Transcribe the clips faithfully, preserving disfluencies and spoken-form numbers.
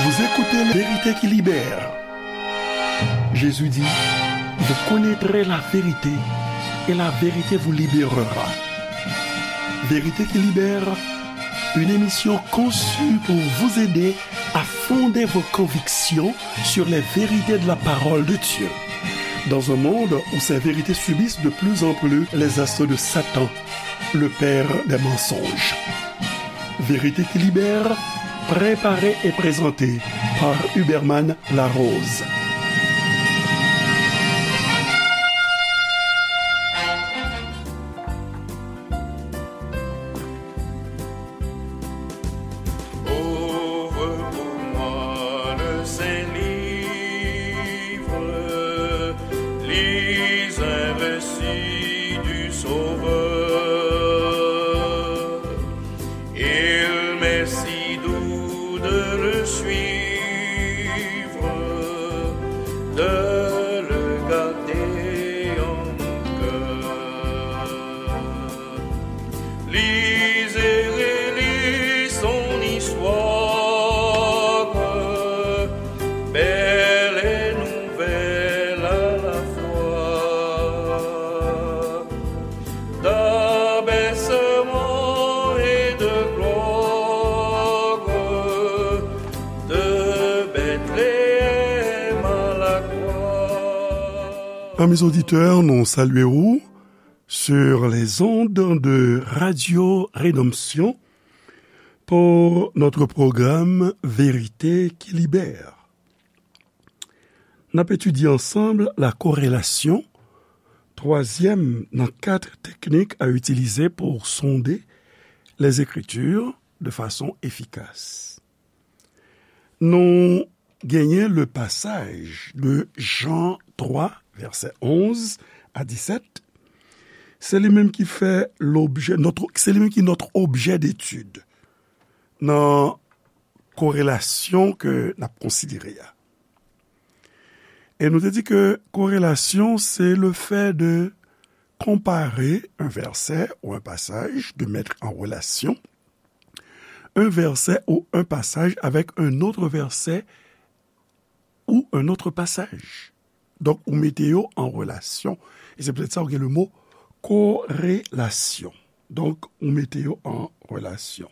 Vous écoutez Vérité qui libère. Jésus dit, vous connaîtrez la vérité et la vérité vous libérera. Vérité qui libère, une émission conçue pour vous aider à fonder vos convictions sur les vérités de la parole de Dieu. Dans un monde où ces vérités subissent de plus en plus les assauts de Satan, le père des mensonges. Vérité qui libère, préparée et présentée par Huberman Larose. Ouvre pour moi le Saint-Livre, lis un récit du Sauveur. Il m'est si doux de le suivre, de le garder en mon cœur. Lis et relis son histoire, belle et nouvelle à la fois. D'abaissement et de gloire, de Bethléem à la croix. Amis auditeurs, nou salye w sur les ondes de Radio Rédemption pour notre programme Vérité qui libère. N ap etidye ansanm la korelasyon, twazyèm nan kat teknik a itilize pou sonde les Écritures de façon efficace. Nou genyen le passage de Jean trois, verset onze à dix-sept. Se li menm ki fè lobjè, notre, se li menm ki notre objet d'étude nan korelasyon ke n ap konsidere a. E nou te di ke korelasyon, se le fait de comparer un verset ou un passage, de mettre en relation un verset ou un passage avec un autre verset ou un autre passage. Donk, ou mete yo an relasyon. E se poutèt sa ou gen le mo korelasyon. Donk, ou mete yo an relasyon.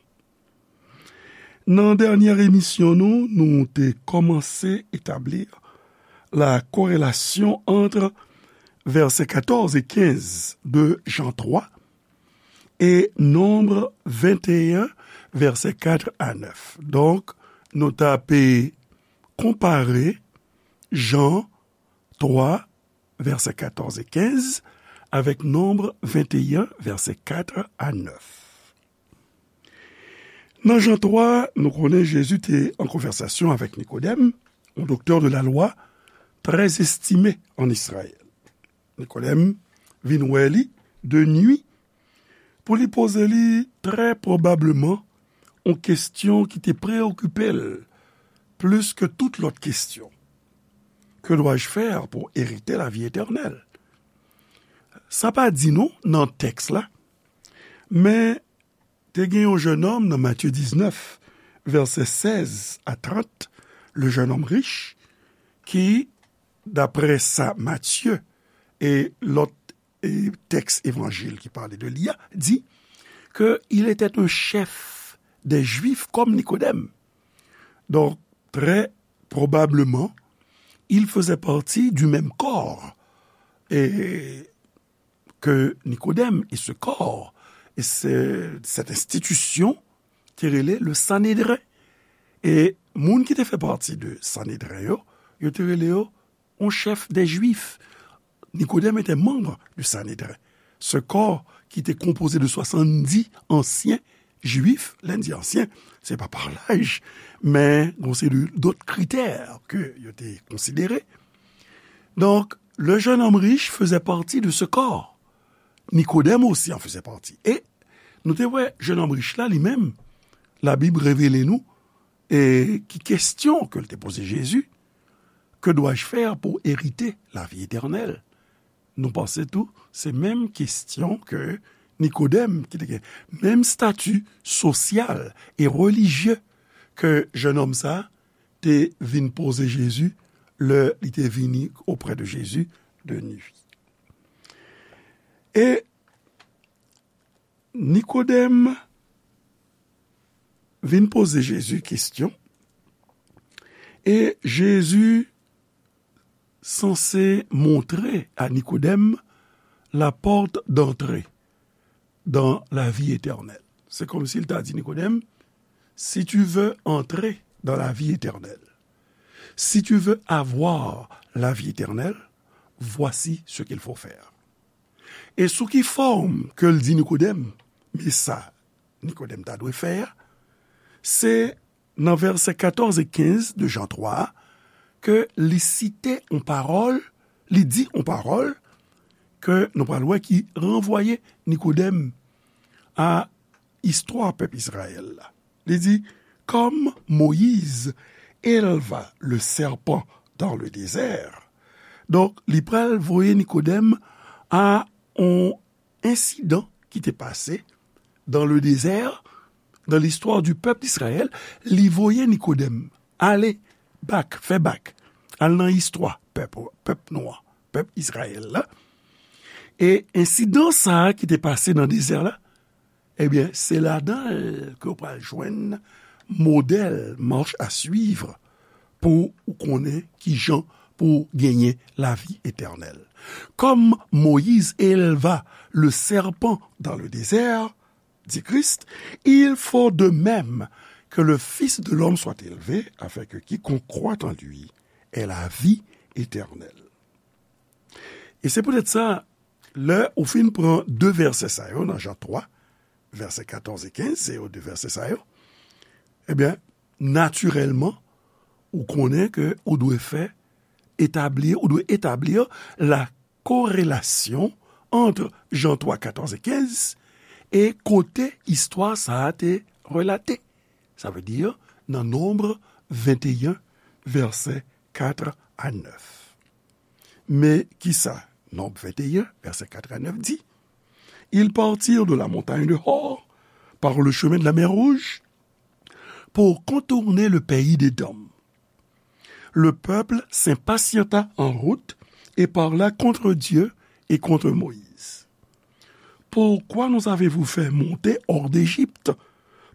Nan dènyè emisyon nou, nou te kòmanse etabli la corrélation entre versets quatorze et quinze de Jean trois et Nombre vingt et un, versets quatre à neuf. Donk, nou ta pe konpare Jan twa, vèsè katòz e kenz, avèk Nonb venteyen, vèsè kat a nèf. Nan Jan twa, nou konnen Jezi te an konvèsasyon avèk Nikodèm, yon doktè de la lwa trè estime an Izrayèl. Nikodèm vin wè li de nwi pou li poze li trè pwobableman yon kesyon ki te preyokipe l plis ke tout lòt kesyon. Que dois-je faire pour hériter la vie éternelle? Sa pa di nou nan tèks la, men te gen yon jennonm nan Matye diznèf, vèsè sèz a trant, le jeune homme riche, ki, daprè sa Matye e lòt e tèks evanjil ki pale de li a, di ke il était un chef des Juifs comme Nikodèm. Donk, trè pwobableman, il faisait partie du même corps e, ke Nikodèm. E ce corps, e ce, cette institution, te rele le Sanedren. E moun ki te fè pati de Sanedren yo, yo te rele yo yon chèf dè Jwif. Nikodèm était membre du Sanedren. Ce corps ki te konpoze de swasanndis ansyen Jwif, lè n di ansyen, se pa pa laj, men gon seri dòt kritè ke yo te konsidere. Donk, le jeune homme riche faisait partie de ce corps. Nikodèm osi an fezè pati. E nou te wè, jennonm rich la, li menm, Labib revele nou, e ki kesyon ke l te poze Jezi, Que dois-je faire pour hériter la vie éternelle? Nou panse tou, se menm kesyon ke Nikodèm, ki te gen menm stati sosyal e relijye ke jennonm sa a, te vin poze Jezi lè li te vini auprès de Jésus de nuit. E Nikodèm vin poze Jezi kesyon, e Jezi sanse montre a Nikodèm la porte d'entrée dans la vie éternelle. Se kòmsi l ta di Nikodèm, si tu veux entrer dans la vie éternelle, si tu veux avoir la vie éternelle, voici ce qu'il faut faire. E sou ki fòm ke l di Nikodèm, men sa Nikodèm ta dwe fè a, se nan vèsè katòz e kenz de Jan twa a, ke li site yon pawòl, li di yon pawòl ke nou pral wè ki ranvwaye Nikodèm a istwa pèp Izrayèl la. Li di, comme Moïse éleva le serpent dans le désert. Donk, li pral voye Nikodèm a yon ensidan ki te pase dans le désert, dans l'histoire du peuple d'Israël. Li voye Nikodèm ale bak, fè bak, al nan istwa pèp, pèp nou an, pèp Izrayèl la. E ensidan sa a ki te pase nan dezè la, ebyen, se ladan l ke w pral jwenn modèl, marche à suivre, pou ou konnen kijan pou w genyen lavi etènèl. Comme Moïse éleva le serpent dans le désert, dit Christ, il faut de même que le Fils de l'homme soit élevé, afin que quiconque croit en lui ait la vie éternelle. E se poutèt sa, lè ou fin pran de vèsè sa yo nan Jan twa, vèsè katòz e kenz, se yo de vèsè sa yo, ebyen, natirèlman, ou konnen ke ou dwe fè etabli, ou dwe etabli la korelasyon ant Jan twa, katòz e kenz e kote istwa sa a te relate. Sa vle di nan Nonb venteyen, vèsè kat a nèf. Men kisa Nonb venteyen, vèsè kat a nèf di? Ils partirent de la montagne de Hor par le chemin de la mer Rouge pour contourner le pays d'Édom. Le peuple s'impatienta en route et parla contre Dieu et contre Moïse. Pourquoi nous avez-vous fait monter hors d'Égypte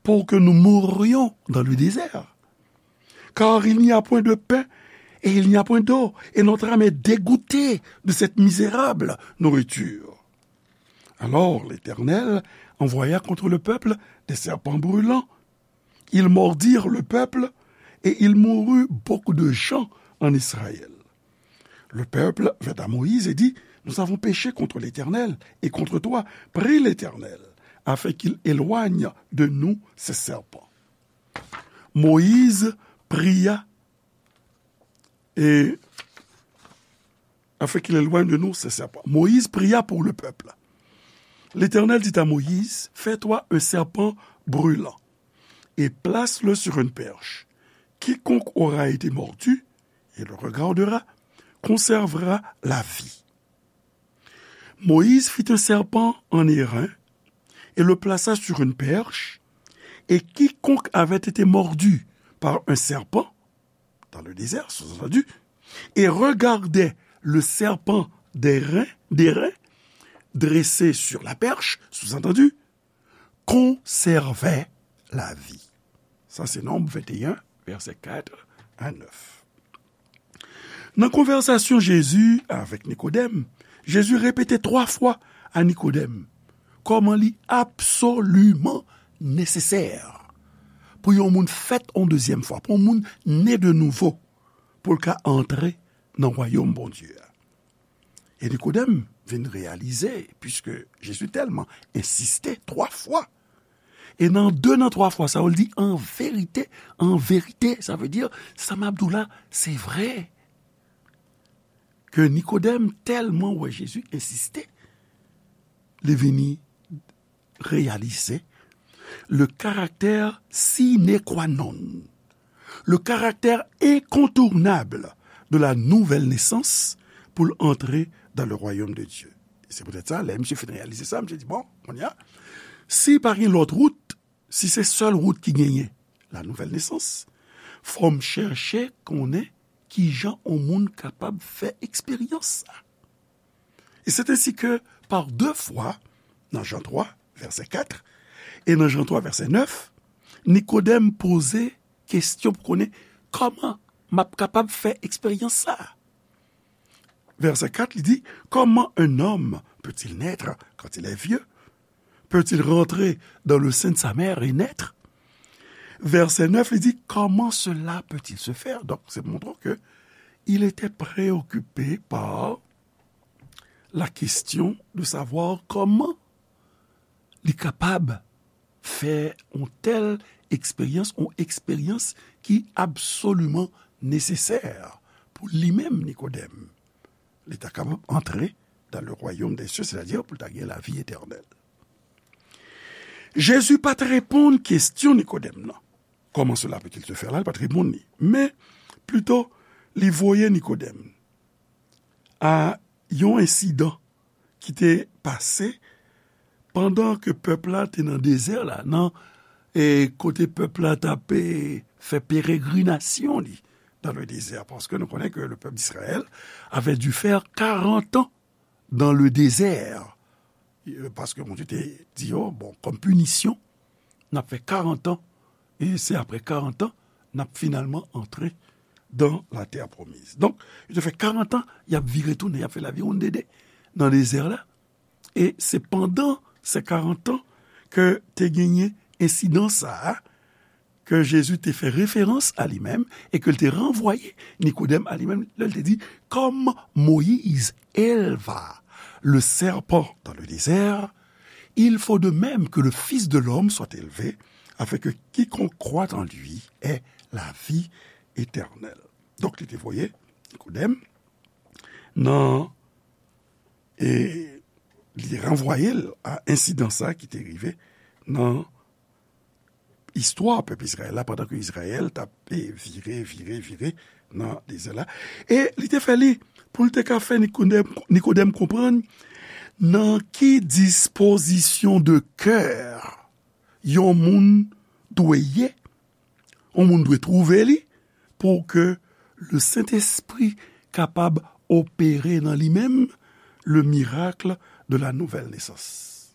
pour que nous mourions dans le désert? Car il n'y a point de pain et il n'y a point d'eau, et notre âme est dégoûtée de cette misérable nourriture. Alors l'Éternel envoya contre le peuple des serpents brûlants. Ils mordirent le peuple et il mourut beaucoup de gens en Israël. Le peuple vint à Moïse et dit, nous avons péché contre l'Éternel et contre toi. Prie l'Éternel afin qu'il éloigne de nous ces serpents. Moïse pria et afin qu'il éloigne de nous ces serpents. Moïse pria pour le peuple. L'Éternel dit à Moïse, fais-toi un serpent brûlant et place-le sur une perche. Quiconque aura été mordu et le regardera conservera la vie. Moïse fit un serpent en airain et le plaça sur une perche, et quiconque avait été mordu par un serpent dans le désert, sous-entendu, et regardait le serpent d'airain, d'airain dressé sur la perche, sous-entendu, conservait la vie. Sa se Nonb venteyen, vèsè kat a nèf. Nan konvèsasyon Jezi avèk Nikodèm, Jezi repete twa fwa a Nikodèm kòman li absoliman nesesè pou yon moun fèt yon dezyèm fwa, pou yon moun ne de nouvo, pou l ka antre nan wayòm Bondye a. E Nikodèm vin reyalize, piske Jezi tèlman ensiste twa fwa, e nan de nan twa fwa sa yo, l di, an verite, an verite, sa vle di, sa m ap di w la, se vre. Ke Nikodèm tèlman wè Jezi ensiste, li vini reyalize le caractère sine qua non, le caractère incontournable de la nouvelle naissance pou l antre dans le royaume de Dieu. Se poutèt sa, lè misye fin reyalize sa, misye di, bon, kounye a, si pa gen lòt wout, si se sèl wout ki genyen, la nouvèl nesans, fò m chèche konnen kijan yon moun kapab fè eksperyans sa. Et c'est ainsi que, par deux fois, nan Jan twa, vèsè kat, e nan Jan twa, vèsè nèf, Nikodèm poze kesyon pou konnen kòman m ap kapab fè eksperyans sa a. Vèsè kat, li di, comment un homme peut-il naître quand il est vieux? Peut-il rentrer dans le sein de sa mère et naître? Vèsè nèf, li di, comment cela peut-il se faire? Donc, c'est montrant que il était préoccupé par la question de savoir comment li kapab fè yon tèl eksperyans, yon eksperyans ki absoliman nesesè pou li menm, Nikodèm. Li ta kapab antre dans le royaume des cieux, c'est-à-dire pou l ta gen lavi etènèl. Jezi pa t reponn kesyon Nikodèm nan. Comment cela peut-il se faire la, li pa t reponn li. Men, plito, li voye Nikodèm a yon ensidan ki te pase pandan ke pèp la te nan dezè la, nan, e, kote pèp la t ap, e, fè peregrinasyon li dans le désert, parce que nous connaissons que le peuple d'Israël avait dû faire quarante ans dans le désert. E, paske Bondye te di yo, bon, kòm pinisyon, n ap fè karant an, e se apre karant an, n ap finalman antre dans la terre promise. Donk, yo te fè karant an, y ap vire tounen, y ap fè lavi wonndede nan dezè la. E se pandan se karant an ke te genyen ensidan sa a, ke Jezi te fè referans a li menm e ke l te ranvwaye Nikodèm a li menm lè l te di, comme Moïse éleva le serpent dans le désert, il faut de même que le Fils de l'homme soit élevé, afin que quiconque croit en lui ait la vie éternelle. Donk, li te voye Nikodèm nan, e li ranvwaye l a ensidan sa ki te rive nan istwa pèp Izrayèl la, pandan ke Izrayèl t ap, e, vire, vire, vire nan dezè la. E li te fè li pou l te ka fè Nikodèm, Nikodèm konprann nan ki dispozisyon de kè yon moun dwe ye, yon moun dwe twouve li pou ke le Sentespri kapab opere nan li menm le miracle de la nouvelle naissance.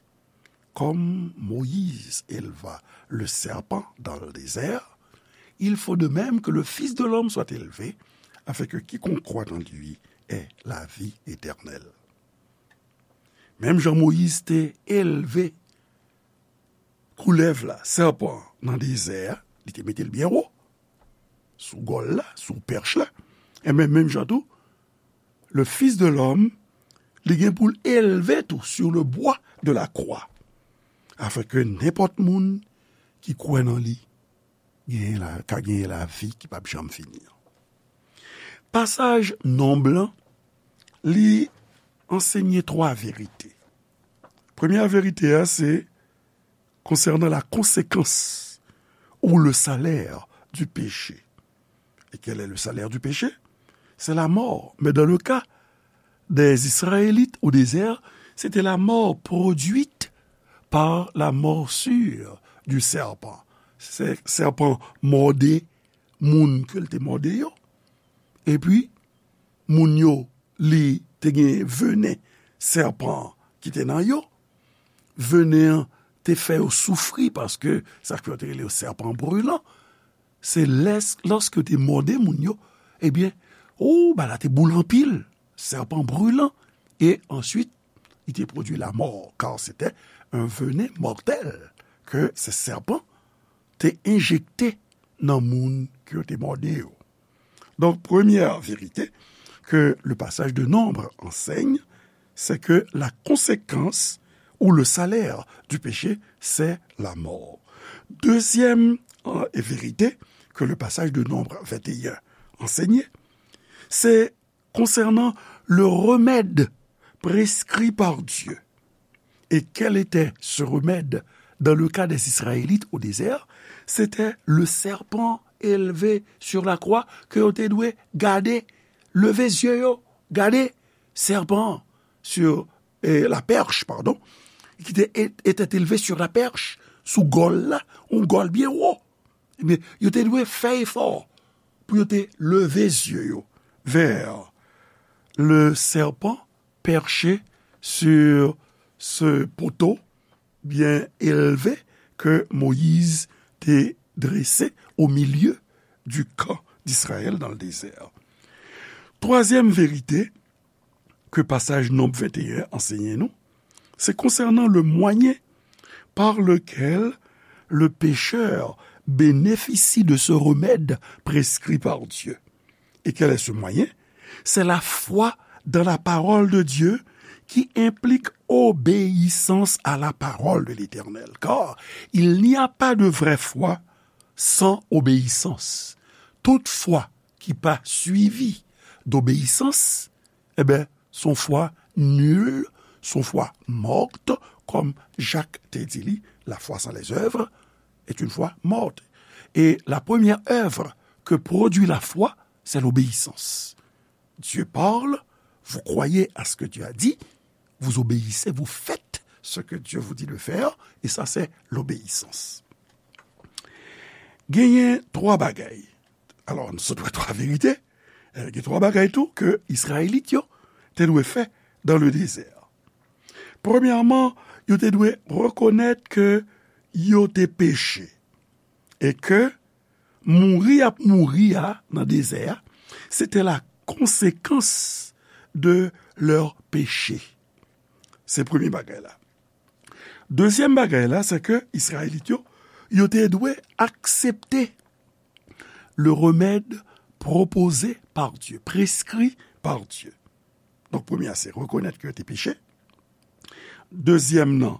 Comme Moïse éleva le serpent dans le désert, il faut de même que le Fils de l'homme soit élevé, afin que quiconque croit en lui ait la vie éternelle. Menm jan Moyiz te elve koulèv la, sèpan an, nan dezè a, li te mete l byen wo, sou gòl la, sou pèch la, enben, menm jan tou, le Fils de l'homme, li gen pou l elve tou sur le bois de la croix, afin que nenpòt moun ki kwè nan li genyen la, ka genyen lavi ki p ap janm fini an. Pasaj Nonb lan, li ansenye twa verite. Premyè verite a, se konsènan la konsekans ou le salaire du péché. Et quel est le salaire du péché? C'est la mort. Mais dans le cas des Israélites au désert, c'était la mort produite par la morsure du serpent. Se sèpan mòde moun ke l te mòde yo. Epi, moun yo, li te gen venen sèpan an ki te nan yo. Venen an te fè yo soufri paske sa k fè yo te rele yo sèpan brilan. Se lès-, lòske yo te mòde moun yo, ebyen, o, bagay la te boule anpil, sèpan brilan. E answit, li te pwodui lamò, car c'était un venin mortel ke se sèpan te enjekte nan moun ke yo te mòde yo. Donc, première vérité que le passage de Nombre enseigne, c'est que la conséquence ou le salaire du péché, c'est la mort. Deuxième, euh, vérité que le passage de Nombre vingt et un enseigne, c'est concernant le remède prescrit par Dieu. Et quel était ce remède dans le cas des Israélites au désert? C'était le serpent élevé sur la croix ke yo te dwe gade, leve zye yo, gade sèpan an. sur, eh, la perche, pardon, qui était, était élevé sur la perche, sou gòl la, yon gòl byen wo. Ebyen, yo te dwe fè efò pou yo te leve zye yo vers le serpent perché sur ce poteau bien élevé que Moïse te dressé au milieu du camp d'Israël dans le désert. Twazyèm verite ke pasaj Nonb venteyen ansenye nou, se konsènan le moyen par lequel le pécheur bénéficie de ce remède prescrit par Dieu. Et quel est ce moyen? C'est la foi dans la parole de Dieu qui implique obéissance à la parole de l'Éternel. Car il n'y a pas de vraie foi sans obéissance. Tout fwa ki pa swivi d'obéissance, eh ben, son foi nulle, son foi morte, comme Jacques te dit, la foi sans les œuvres est une foi morte. Et la première œuvre que produit la foi, c'est l'obéissance. Dieu parle, vous croyez à ce que Dieu a dit, vous obéissez, vous faites ce que Dieu vous dit de faire, et ça, c'est l'obéissance. Genyen twa bagay. Alò, nou sot wè twa verite. Eh, gen twa bagay tou ke Izrayelit yo te dwe fè dans le désert. Premyèman, yo te dwe rekonèt ke yo te peche e ke mouri y ap mouri a nan dezè a, se te la konsekans de leur péché. Se premye bagay la. Dezyèm bagay la, se ke Izrayelit yo, yo te dwe aksepte le remède proposé par Dieu, prescrit par Dieu. Donk, premye a, se rekonèt ke yo te peche. Dezyèm nan,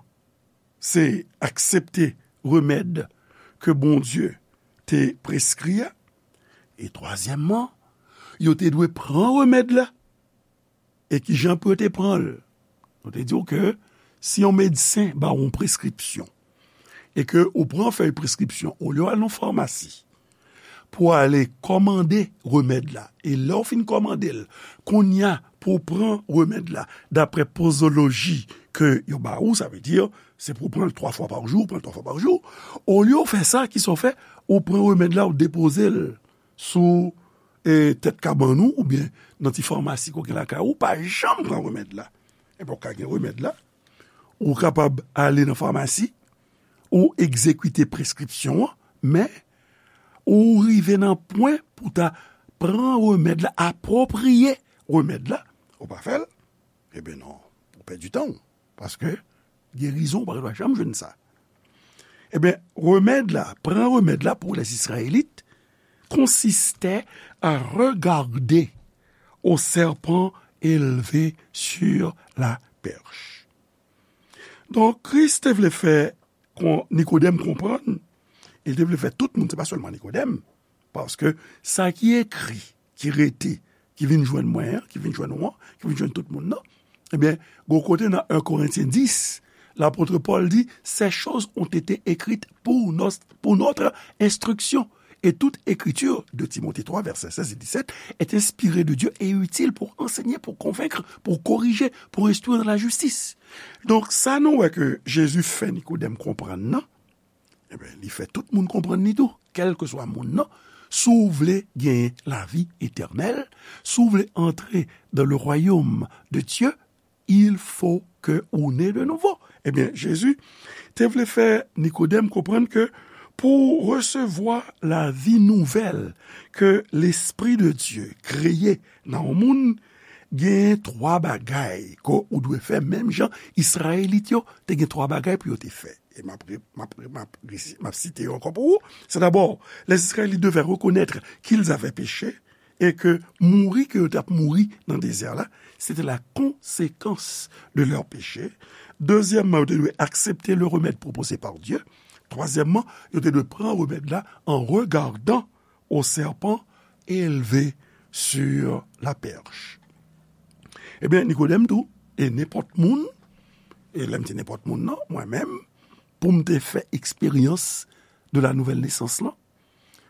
se aksepte remèd ke Bondye te preskri a. E twazyèmman, yo te dwe pran remèd la. E ki jan pou yo te pran l? Nou te di w ke si yon medsen ba w yon preskripsyon, e ke ou pran fèy preskripsyon, olye w al nan famasi pou w ale kòmande remèd la, e lè w fin kòmande l, kounye a pou w pran remèd la, daprè pozoloji ke yo ba ou, sa vle di, se pou w pran l twa fwa pa jou, ou pran l twa fwa pa jou, olye w fè sa, kisa w fè? Ou pran remèd la, ou depoze l sou, e, tèt kabann ou, oubyen nan ti famasi ke w gen lakay ou, ou pa janm pran remèd la. Enben, w ka gen remèd la, ou kapab ale nan famasi, ou egzekite preskripsyon an, men ou rive nan pwen pou ta pran remèd la, apwopriye remèd la, ou pa fè l, enben non, ou pèdi tan w, paske gerizon ou pa t ap janm jwenn sa. Enben, remèd la, pran remèd la pour les Israélites consistait à regarder au serpent élevé sur la perche. Donk, Kris te vle fè kon-, Nikodèm konprann, e l te vle fè tout moun, se pa sèlman Nikodèm, paske sa ki ekri, ki rete, ki vin jwenn mwen an, ki vin jwenn ou an, ki vin jwenn tout moun nan, ebyen, gon kote nan en Korentyen dis, lapot Pòl di, ces choses ont été écrites pour nos, pour notre instruction. Et toute écriture, deux Timothée trois, versets seize et dix-sept, est inspirée de Dieu et utile pour enseigner, pour convaincre, pour corriger, pour instruire dans la justice. Donk, sa nou wè ke Jezi fè Nikodèm konprann nan, enben, li fè tout moun konprann li tou, kèlkeswa moun nan. Si w vle genyen lavi etènèl, si w vle antre dans le royaume de Dieu, il faut que ou né de nouveau. Ebyen, Jezi te vle fè Nikodèm konprann ke pou w resevwa lavi nouvèl ke Lespri de Dye kreye nan yon moun, gen twa bagay ke ou dwe fè, menm jan Izrayelit yo te gen twa bagay pou yo te fè. E m ap re-, m ap re-, m ap resi-, m ap site yo ankò pou ou. C'est d'abord, les Israélites devaient reconnaître qu'ils avaient péché, e ke mouri ke yo t ap mouri nan dezè la, se te la konsekans de leur péché. Dezyèmman, yo te dwe aksepte le remède proposé par Dieu. Twazyèmman, yo te dwe pran remèd la en regardant au serpent élevé sur la perche. Ebyen, Nikodèm tou, e nenpòt moun, e lè m di nenpòt moun nan, mwen menm, pou m te fè eksperyans de la nouvelle naissance lan,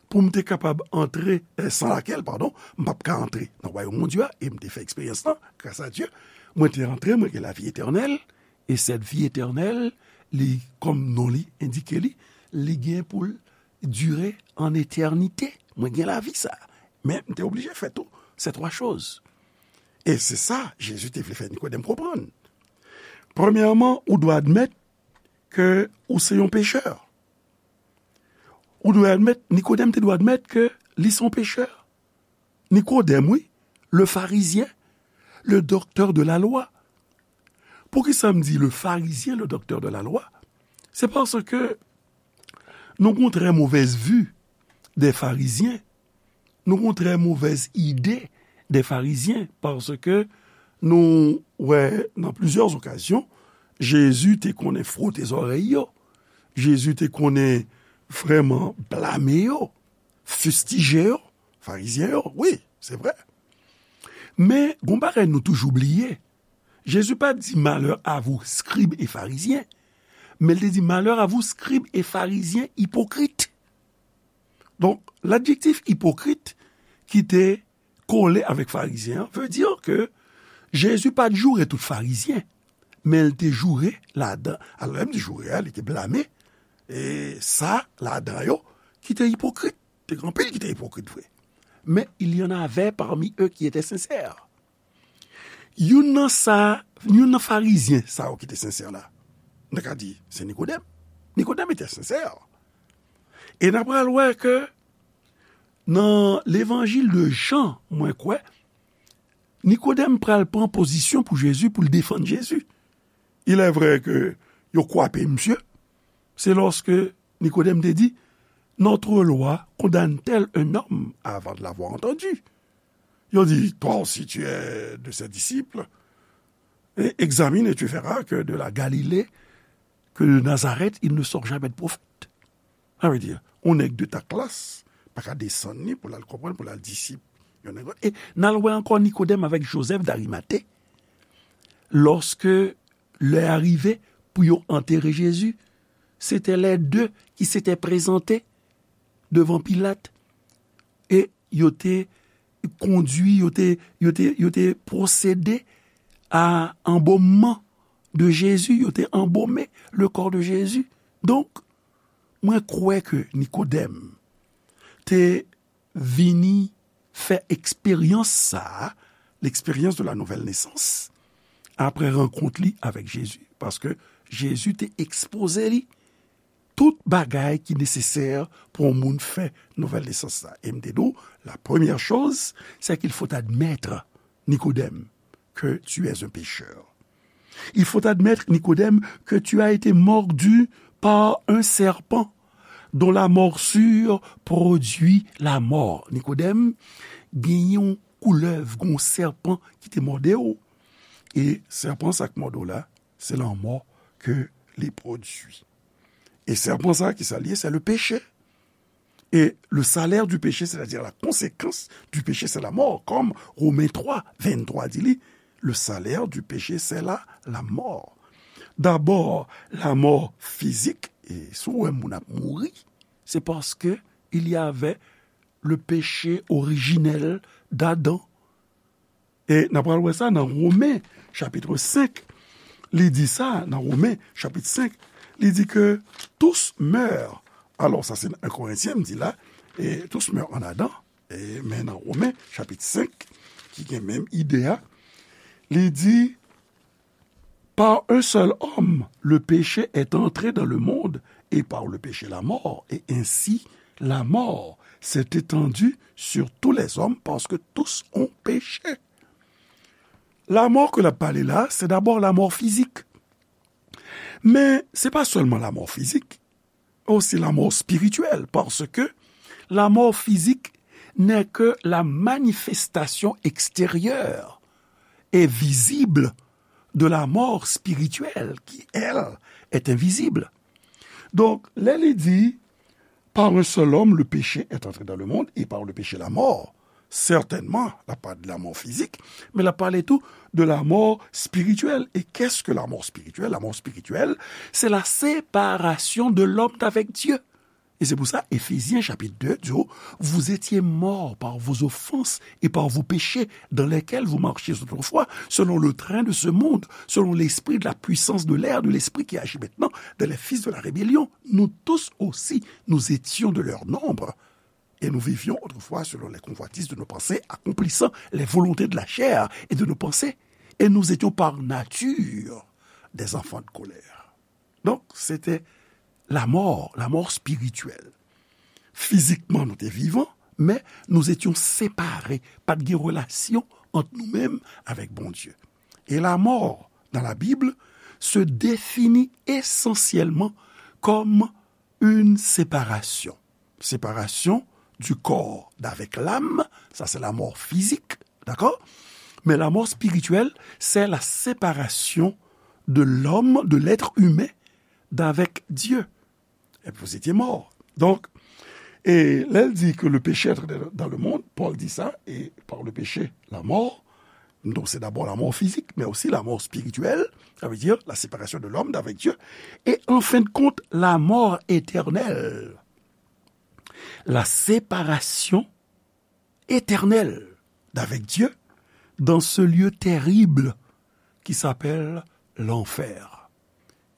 pou m te kapab antre, eh, sans laquelle, pardon, m p ap ka antre nan wayòm Bondye a, e m te fè eksperyans lan, grâce à Dieu, Mwen te antre, mwen gen lavi etènèl, e cette vie éternelle, li, kòm non li endike li, li gen pou l dire an etènite. Mwen gen lavi sa. Men m te oblije fè tou ces trois choses. E se sa Jezi te vle fè Nikodèm konprann. Premyèman, ou dwe admèt ke ou se yon pechè. Ou dwe admèt, Nikodèm te dwe admèt ke li se yon pechè. Nikodèm, wi, le pharisien, le docteur de la loi. Poukisa m di le pharisien, le docteur de la loi? Se paske nou gon trè movèz vi dè farizyen. Nou gon trè movèz ide dè farizyen, paske nou wè nan plizyè okazyon, Jezi te konnen fwote zòrèy yo. Jezi te konnen vrèman blame yo, fistije yo, farizyen yo. Wi, se vrè. Men, gon bagay nou toujou bliye. Jezi pa di malheur à vous, scribes et pharisiens, men l te di malheur à vous, scribes et pharisiens hypocrites. Donk, ladjektif ipokrit ki te kole avèk farizyen an vle di ke Jezi pa t joure tout farizyen, men l te joure ladan. Alò, lè m di joure a, li te blame, e sa ladan yo ki te ipokrit. Te gen anpil ki te ipokrit vre. Men il y en avait parmi eux qui étaient sincères. Youn nan sa, youn nan farizyen sa yo ki te sensè la, n ta ka di, se Nikodèm. Nikodèm te sensè. E n ap pral wè ke nan levanjil de Jan, mwen kwè, Nikodèm pral pran pozisyon pou Jezi, pou l defann Jezi. Il est vrai ke yo kwape misye. Se lòske Nikodèm te di, notre loi condamne-t-elle un homme avant de l'avoir entendu? Yo di, toi aussi tu es de ses disciples, et examine et tu verras que de la Galilée, que de Nazareth, il ne sort jamais de prophète. Sa vle di, yon nèg de ta klas pa ka desann li pou l al konprann, pou l al disip yon nèg lòt. E n al wè ankò Nikodèm avèk Jozèf Darimate, lòske lè a rive pou yo antere Jezi, se te lè de ki se te prezante devan Pilat, e yo te kondui, yo te, yo te, yo te pwosede a anbomman de Jezi, yo te anbome le kò de Jezi. Donk, mwen kwè ke Nikodèm te vini fè eksperyans sa a, l'expérience de la nouvelle naissance, apre rankont li avèk Jezi. Paske Jezi te ekspoze li tout bagay ki nesesè pou yon moun fè nouvèl nesans la. E m te di w, la première chose, c'est qu'il faut admettre, Nikodèm, que tu es un pécheur. Il faut admettre, Nikodèm, que tu as été mordu par un serpent dont la morsure produit la mort. Nikodèm, gen yon koulèv, gen yon sèpan ki te mòde w. E sèpan sa k mòde w la, se lanmò ke li pwodui. E sèpan sa, ki sa l ye? C'est le péché. Et le salaire du péché, c'est-à-dire la conséquence du péché, c'est la mort. Comme Romains trois, vingt-trois di li, le salaire du péché, c'est la, la mort. D'abord, la mort physique, e si w wè moun ap mouri, se paske il y avait le péché originel d'Adam. E n ap pral wè sa nan Women, chapit senk. Li di sa nan Women, chapit senk. Li di ke tous meurent. Alò, sa se nan en Korentyen, m di la, e tous meurent en Adam. E, men nan Women, chapit senk, ki gen menm ide a, li di, par un seul homme, le péché est entré dans le monde, et par le péché, la mort. Et ainsi, la mort s'est étendue sur tous les hommes, parce que tous ont péché. Lanmò ke l ap pale la, se dabò lanmò fizik. Men, se pa sèlman lanmò fizik, osi lanmò espirityèl, paske lanmò fizik n'est que la manifestation extérieure et visible de la mort spirituelle, qui, elle, est invisible. Donk, lè li di, par un seul homme, le péché est entré dans le monde, et par le péché, la mort. Sètènman, l ap pale de lanmò fizik, men l ap pale tou de lanmò espirityèl. E qu'est-ce que la mort spirituelle? Lanmò espirityèl, se la séparation de l'homme d'avec Dieu. Et c'est pour ça, Éphésiens chapitre deux dit, vous étiez morts par vos offenses et par vos péchés dans lesquels vous marchiez autrefois, selon le train de ce monde, selon l'esprit de la puissance de l'air, de l'esprit qui agit maintenant dans les fils de la rébellion. Nous tous aussi, nous étions de leur nombre. Et nous vivions autrefois selon les convoitises de nos pensées, accomplissant les volontés de la chair et de nos pensées. Et nous étions par nature des enfants de colère. Donk, se te lanmò, lanmò espirityèl. Fizikman, nou te vivan, men nous étions séparés, pa t gen relasyon ant nou menm avèk Bondye. Et la mort, dans la Bible, se définit essentiellement comme une séparation. Séparation du corps d'avec l'âme, ça c'est la mort physique, d'accord? Mais la mort spirituelle, c'est la séparation de l'homme, de l'être humain, d'avec Dieu. Et vous étiez mort. Donc, et là, il dit que le péché est entré dans le monde, Paul dit ça, et par le péché, la mort. Donc, c'est d'abord la mort physique, mais aussi la mort spirituelle, ça veut dire la séparation de l'homme d'avec Dieu, et en fin de compte, la mort éternelle. La séparation éternelle d'avec Dieu dans ce lieu terrible qui s'appelle l'enfer.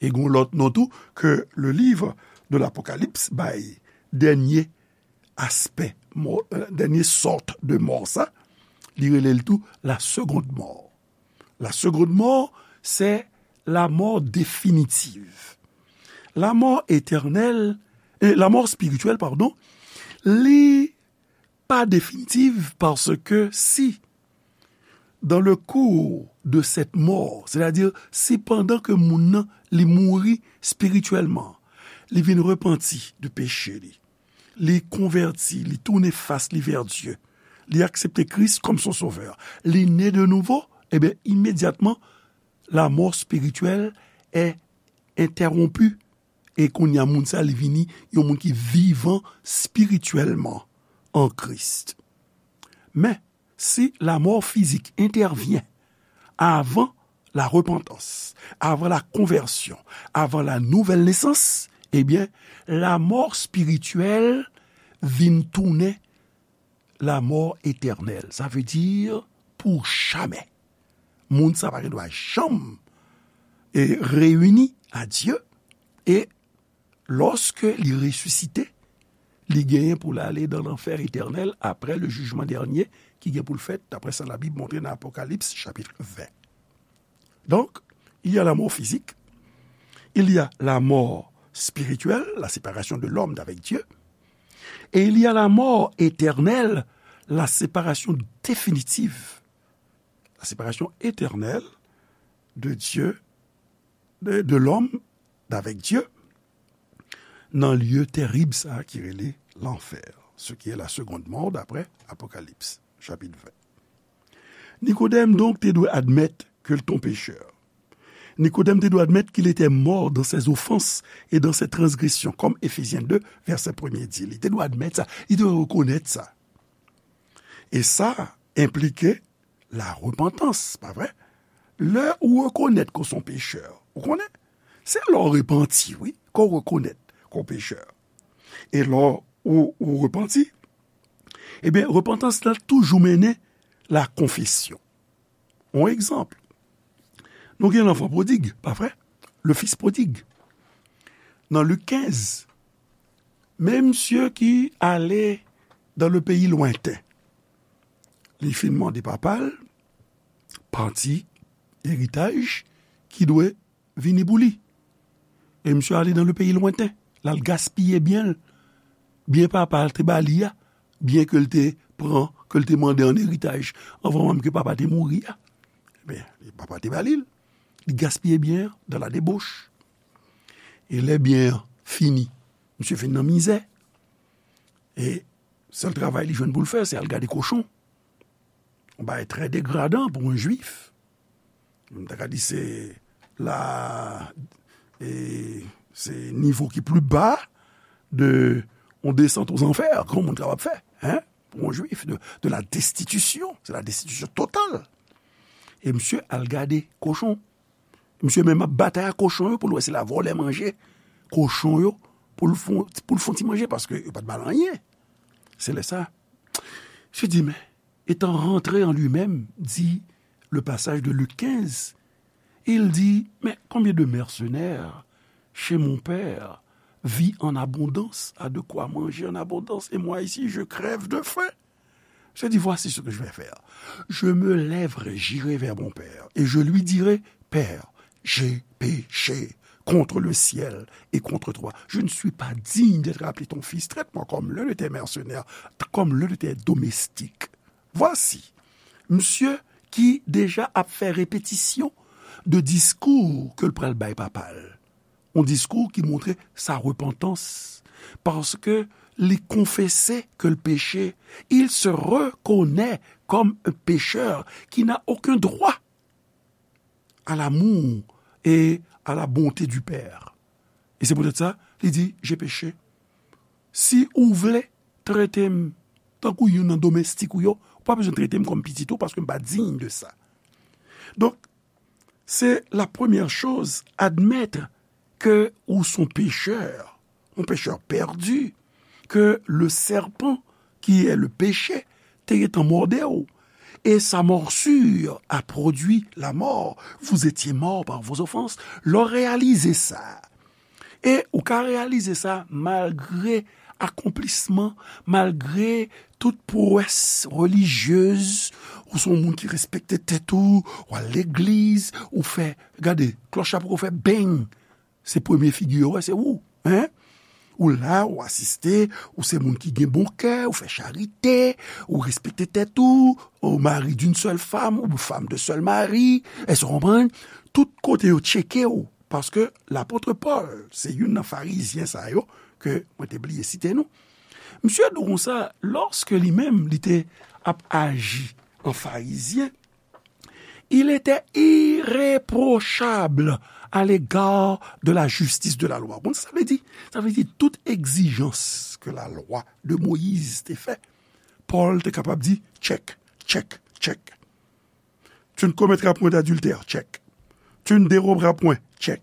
E gon lòt non tou ke le livre de l'Apocalypse bay dènye aspè, mò, euh, dènye sòt de mò sa, li rele l tou la seconde mort. La seconde mort, c'est la mort définitive. La mort éternelle, euh, la mort spirituelle, pardon, li pa définitive parce que si dans le cours de cette mort, c'est-à-dire si pandan ke moun nan li mouri spirityèlman, li vin repanti de peche li, li konvèti, li tounen fas li vè Dye, li aksepte Kris kòm son sovè, li ne de nouvo, ebyen, imedyatman, la mort spirituelle est interrompue. E kounye a, moun sa, li vini yon moun ki vivan spirityèlman an Kris. Men, si la mort physique intervient avant la repentance, avant la conversion, avant la nouvelle naissance, ebyen, la mort spirituelle vin tounen la mort éternelle. Ça veut dire pour jamais. Moun sa pa gen dwa janm, e, reyini a Dye. E lòske li resisite, li genyen pou l ale dan lanfè etènèl apre le jugement dernier ki gen pou l fèt, daprè sa Labib montre nan Apokalips, chapit ven. Donc, il y a la mort physique, il y a la mort spirituelle, la séparation de l'homme d'avec Dieu, et il y a la mort éternelle, la séparation définitive, la séparation éternelle de Dieu, de, de l'homme d'avec Dieu, nan lye terib sa ki rele lanfè, ce qui est la seconde mort d'après Apocalypse, chapitre vingt. Nikodèm, donk, te dwe admèt ke l te yon pechè. Nikodèm te dwe admèt qu'il était mort dans ses offenses et dans ses transgressions, comme Éphésiens deux, verset premier di. Li te dwe admèt sa, li te dwe rekonèt sa. E sa enplike la repantans, pa vre? Lè ou rekonèt ke w se yon pechè, ou konnen? Se lè w repanti, wi, ke w rekonèt ke w pechè. E lè ou, ou repanti, ebyen, repantans la toujou mennen la konfesyon. Yon egzanp, nou gen lanfan pwodig, pa vre? Le fils prodigue. Nan Lik kenz, men misye ki ale dans le pays lointain, li fin mande papa l pati eritaj ki dwe vini pou li. E misye ale dans le pays lointain. L al gaspiye byen l. Byen papa l te ba li a, byen ke l te pran, ke l te mande an eritaj anvan menm ke papa te mouri a. Ebyen, papa te ba li l. Li gaspiye byen an dans la débauche. E lè byen an fini, misye fin nan mizè. E sèl travay li jwenn pou l fè, se al gade kochon. Yon bagay trè degradan pou yon jwif. M ta ka di se la, e, se nivo ki pli ba de yon desant aux enfers ke yon moun kapab fè, hein, pou yon jwif, de, de la destitution, c'est la destitution totale. E misye al gade kochon. Misye menm ap batay ak kochon yo pou l wè si l a vòlè manje kochon yo pou l fon, pou l fon ti manje, paske yo pa t ba l anyen. Se lè sa, Jésus dit, mais, étant rentré en lui-même, dit le passage de Luc quinze, il dit, mais combien de mercenaires chez mon père vit en abondance, a de quoi manger en abondance, et moi ici, je crève de faim. Je dis, voici ce que je vais faire. Je me lèverai, j'irai vers mon père, et je lui dirai, Père, j'ai péché contre le ciel et contre toi. Je ne suis pas digne d'être appelé ton fils. Traite-moi comme l'un de tes mercenaires, comme l'un de tes domestiques. Voici, misye ki deja ap fè repetisyon de diskou ke l pral bay papa l. Yon diskou ki montre sa repantans, paske li konfese ke l peche, il se reconnaît comme un pécheur qui n'a aucun droit à l'amour et à la bonté du Père. E se poutèt sa, li di, j'ai péché. Si ou vle trete m tankou youn nan domestik ou yo, ou pa bezwen trete m kòm pitit ou, paske m pa diy de sa. Donk, se la premyè choz, admèt ke ou s on pechè, yon pechè pèdi, ke le serpent, qui est le péché, te gentan mòde w, et sa morsure a produit la mort. Vous étiez morts par vos offenses. Lè w reyalize sa, e ou ka reyalize sa malgre akonplisman, malgre tout pwès relijyez, ou se yon moun ki respekte tèt ou, ou al legliz, ou fè, gade, klòch la poko fè beng, se premye figi yo wè, se ou, en? Ou la, ou asiste, ou se moun ki gen bon kè, ou fè charite, ou respekte tèt ou, ou mari d'une seule femme, ou femme de seul mari, èske w konprann? Tout kote yo tcheke w, paske lapot Pòl, se youn nan farizyen sa yo, ke mwen te bliye site non. Misye di w konsa, lòske li menm, li te ap aji an farizyen, il était irréprochable à l'égard de la justice de la loi. Bon, sa vle di, sa vle di tout egzijans ke la lwa de Moyiz te fè, Pòl te kapab di, check, check, check. Tu ne commettras point d'adultère, check. Tu ne déroberas point, check.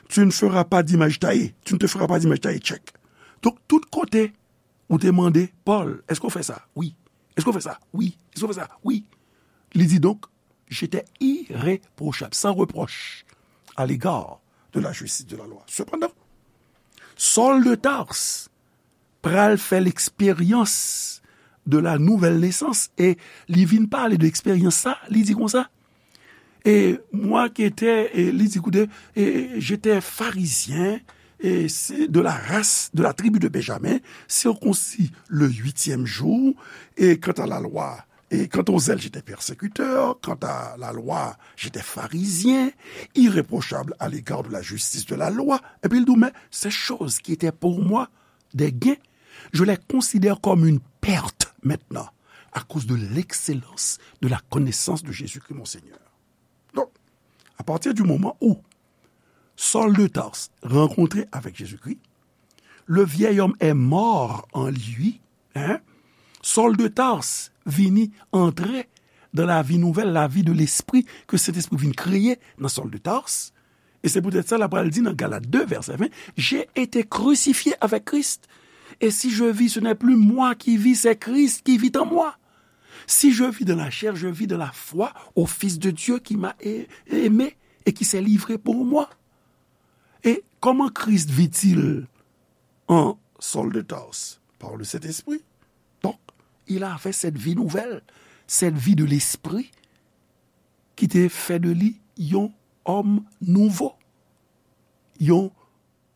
Tu ne feras pas d'image taillée, tu ne te feras pas d'image taillée, check. Donk, tout kote, ou te mande, Pòl, èske w fè sa? Wi. Èske w fè sa? Wi. Èske w fè sa? Wi. Li di donk, j'étais irréprochable, sans reproche, à l'égard de la justice de la loi. Sepandan, Sòl de Tars pral fè leksperyans de la nouvelle naissance, e li vin pale de eksperyans sa, li di konsa, et moi qui étais, e li di koute, e j'étais pharisien, et c'est de la race, de la tribu de Benjamin, circoncis le huitième jour, et quant à la loi, et quant au zèle, j'étais persécuteur, quant à la loi, j'étais pharisien, irréprochable à l'égard de la justice de la loi. Epi l di w, mais ces choses qui étaient pour moi des gains, je les considère comme une perte maintenant, à cause de l'excellence de la connaissance de Jésus-Christ mon Seigneur. Donk, apati di moman ou Sòl de Tars rankontre avèk Jezikri, le vieil homme est mort en lui, hein? Sòl de Tars vini antre dans la vie nouvelle, la vie de l'esprit ke Sentespri vin kreye nan Sòl de Tars. E se poutèt sa, l ap pral di nan Galat de, vèsè ven, j'ai été crucifié avec Christ. Et si je vis, ce n'est plus moi qui vis, c'est Christ qui vit en moi. Si je vis dans la chair, je vis dans la foi au Fils de Dieu qui m'a a-, aimé et qui s'est livré pour moi. Et comment Christ vit-il en Saul de Tarse? Par le Saint-Esprit. Donc, il avait cette vie nouvelle, cette vie de l'esprit qui te fè de li yon òm nouvo, yon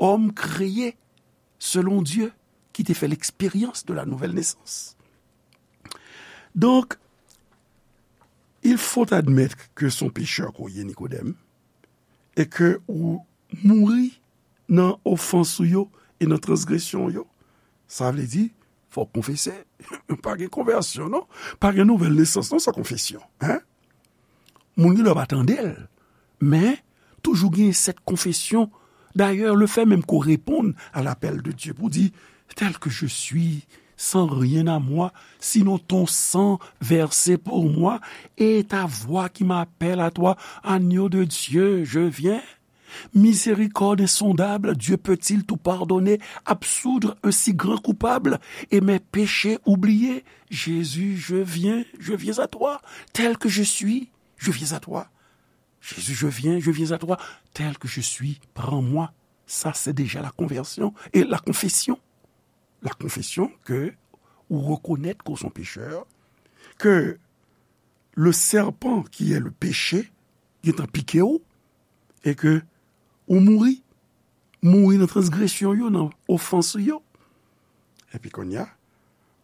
òm kreye selon Dye ki te fè l'expérience de la nouvelle naissance. Donc, il faut admettre que c'est un pécheur ke w ye, Nikodèm, e ke ou mouri nan ofans ou yo e nan transgresyon yo. Sa vle di, fò w konfese. Pa gen konvèsyon, non. Pa gen nouvèl nesans, non, san konfesyon. Hein? Moun gen dwa pa tande l, men toujou gen cette confession. D'ailleurs, le fait même qu'on réponde à l'appel de Dieu pour dire, tel que je suis, sans rien à moi, sinon ton sang versé pour moi et ta voix qui m'appelle à toi, agneau de Dieu, je viens. Miséricorde insondable, Dieu peut-il tout pardonner, absoudre un si grand coupable et mes péchés oubliés? Jésus, je viens, je viens à toi, tel que je suis, je viens à toi. Jésus, je viens, je viens à toi, tel que je suis, prends-moi. Ça, c'est déjà la conversion et la confession. La confession que ou reconnaître qu'on sont pécheur, que le serpent qui est le péché, il est en piqué, et que ou mouri, mouri nan transgression yo, nan ofans yo. Epi kounye a,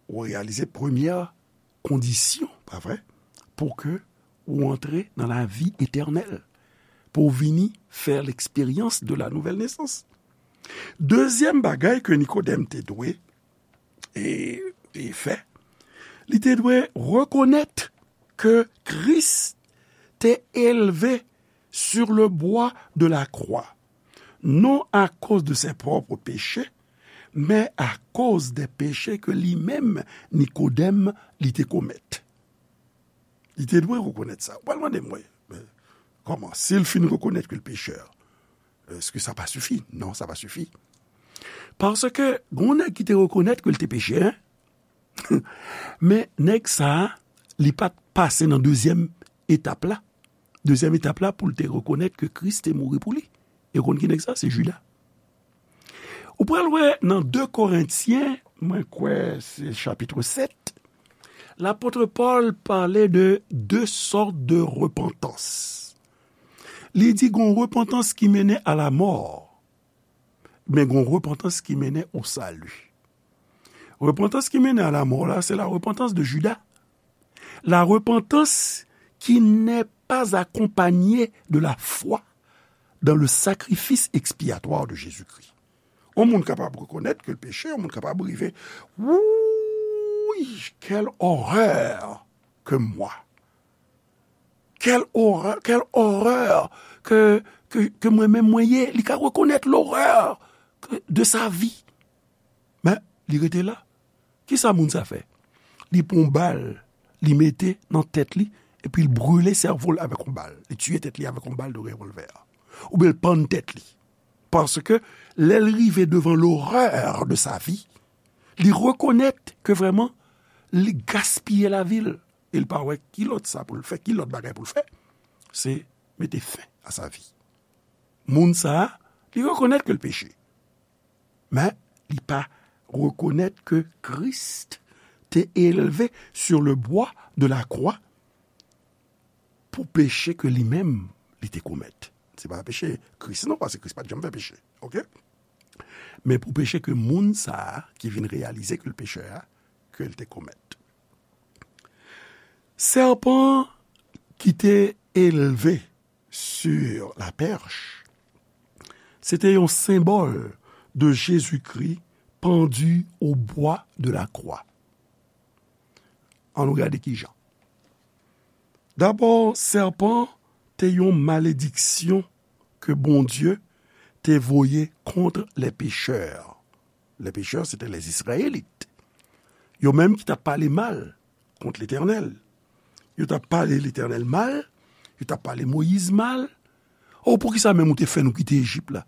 ou réalisé première condition, pas vrai, pour que ou antre dans la vie éternelle, pour vini faire l'expérience de la nouvelle naissance. Deuxième bagay que Nikodèm te dwe e, e fè, li te dwe reconnaître que Christ te élevé sur le bois de la croix, non à cause de ses propres péchés, mais à cause des péchés que li menm, Nikodèm, li te commettre. Li te dwe reconnaître ça. Ou pral mande mwen, kòman? Si l fin reconnaître que le pécheur, est-ce que ça pas suffit? Non, ça pas suffit. Parce que gon nèg ki te reconnaître que l te péchè, hein? Men nèg sa a, li pa t pase nan dezyèm etap la. Dezyèm etap la pou l te reconnaître que Christ te mouri pou li. E ou konn ki nèg sa? Se Juda. Ou pral wè nan de Korentyen, mwen kwè se chapit sèt, lapot Pòl pale de de sortes de repentance. Li di gon repentans ki mennen a lamò, men gon repentans ki mennen o sali. Repentans ki mennen a lamò la, c'est la repentance de Judas. La repentance qui n'est pas accompagnée de la foi dans le sacrifice expiatoire de Jésus-Christ. Yon moun kapab reconnaître que l peche, yon moun kapab rive, wouyy, quelle horreur que moi. Quelle horreur, quelle horreur que, que, que mwen menm mwen ye. Li ka reconnaître l'horreur que, de sa vie. Men, li rete la. Kisa moun sa fè? Li pran yon bal, li mete nan tèt li, epi l brile sèvo l avèk yon bal. Li tiye tèt li avèk yon bal de revòlvè. Oubyen l pann tèt li. Paske lè l rive devan l'horreur de sa vie, li reconnaître que vraiment, li gaspiye lavi l. E l pa wè ki lòt sa pou l fè, ki lòt bagay pou l fè. Se mete fen a sa vi. Moun sa a, li reconnaître que l peche. Men, li pa reconnaître que Christ te élevé sur le bois de la croix pour péché que li menm, li te komèt. Se pa peche Kris non, paske Kris pa t janm fè peche. Oke? Men pou peche ke moun sa a ki vin reyalize ke l pechè a, ke l te komèt. Sèpan ki te elve sur la perche, se te yon senbòl de Jezikri pandi au bois de la croix. Ann nou gade ki jan. Dabò, sèpan te yon malediksyon ke Bondye te voye kont les pécheurs. Les pécheurs, se te les Israélites. Yo menm ki t ap pale mal kont Letènèl. Yo t ap pale Letènèl mal, yo t ap pale Moyiz mal. O, poukisa menm ou te fè nou kite Ejip la?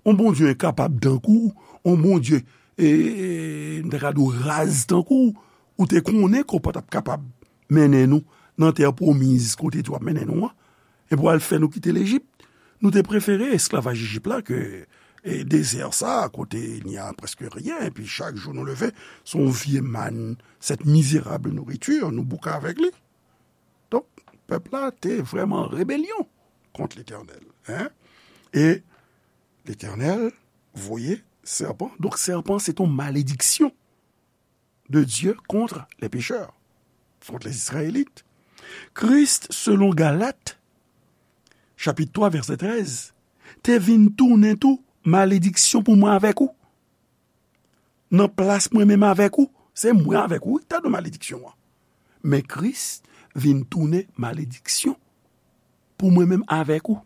On Bondye enkapab tankou w, on Bondye, e, e, m ta ka di w raz tankou w, ou te konnen ke w pa t ap kapab mennen nou nan tè pwomiz kote w ap mennen nou an, epi w al fè nou kite Lejip. Nou te prefere esklavaj Ejip la ke, e, dezè sa a, kote il n'y a presque rien, epi chak jou nou leve, se yon vye màn, cette misérable nourriture, nou bouke avèk li. Donk, pèp la te vrèman an rebelyon kont Letènèl, en. E Letènèl voye sèpan. Donk, sèpan, se te yon malediksyon de Dye kont les pécheurs, kont les Israélites. Kris, selon Galat, chapit twa, vèsè trèz, te vin tounen tou malediksyon pou mwen avèk ou. Nan plas mwen menm avèk ou, se mwen avèk ou, wi, ki ta dwe malediksyon an. Men Kris vin tounen malediksyon pou mwen menm avèk ou.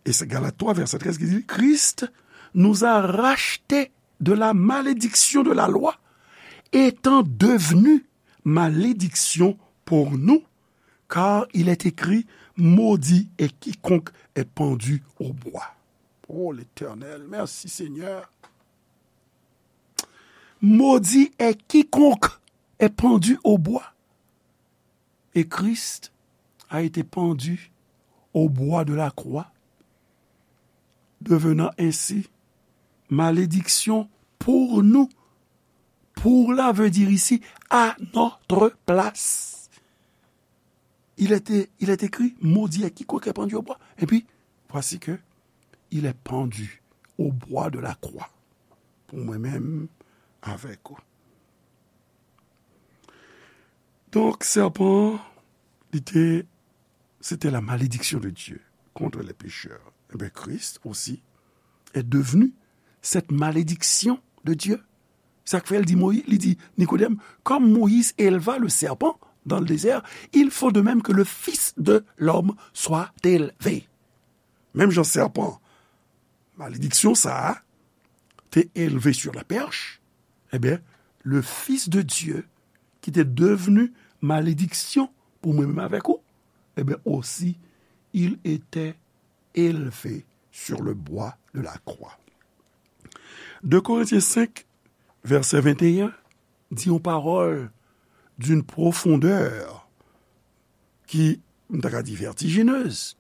E se Galat twa, vèsè trèz ki di, Christ nous a rachetés de la malédiction de la loi, étant devenu malédiction pour nous, car il est écrit, Maudit est quiconque est pendu au bois. Oh l'Éternel, merci Seigneur. Maudit est quiconque est pendu au bois. Et Christ a été pendu au bois de la croix, devenant ainsi malédiction pour nous. Pour là veut dire ici à notre place. Il est, il est écrit, maudit est quiconque est pendu au bois. Et puis, voici que il est pendu au bois de la croix. Pou mwen menm avèk ou. Donk, sèpan, li te, c'était la malédiction de Dieu contre les pécheurs. Eh bien, Christ aussi est devenu cette malédiction de Dieu. Sa k fè l di Moyiz, li di Nikodèm, comme Moïse éleva le serpent dans le désert, il faut de même que le Fils de l'homme soit élevé. Menm jan sèpan, malediksyon sa a, te elve sur la perche, eh bien, le Fils de Dieu, ki te devni malediksyon pou mwen menm avèk ou, eh bien, aussi, il était élevé sur le bois de la croix. De Corinthiens cinq, verset vingt et un, di yon pawòl d'une profondeur ki, m ta ka di, vertigineuse,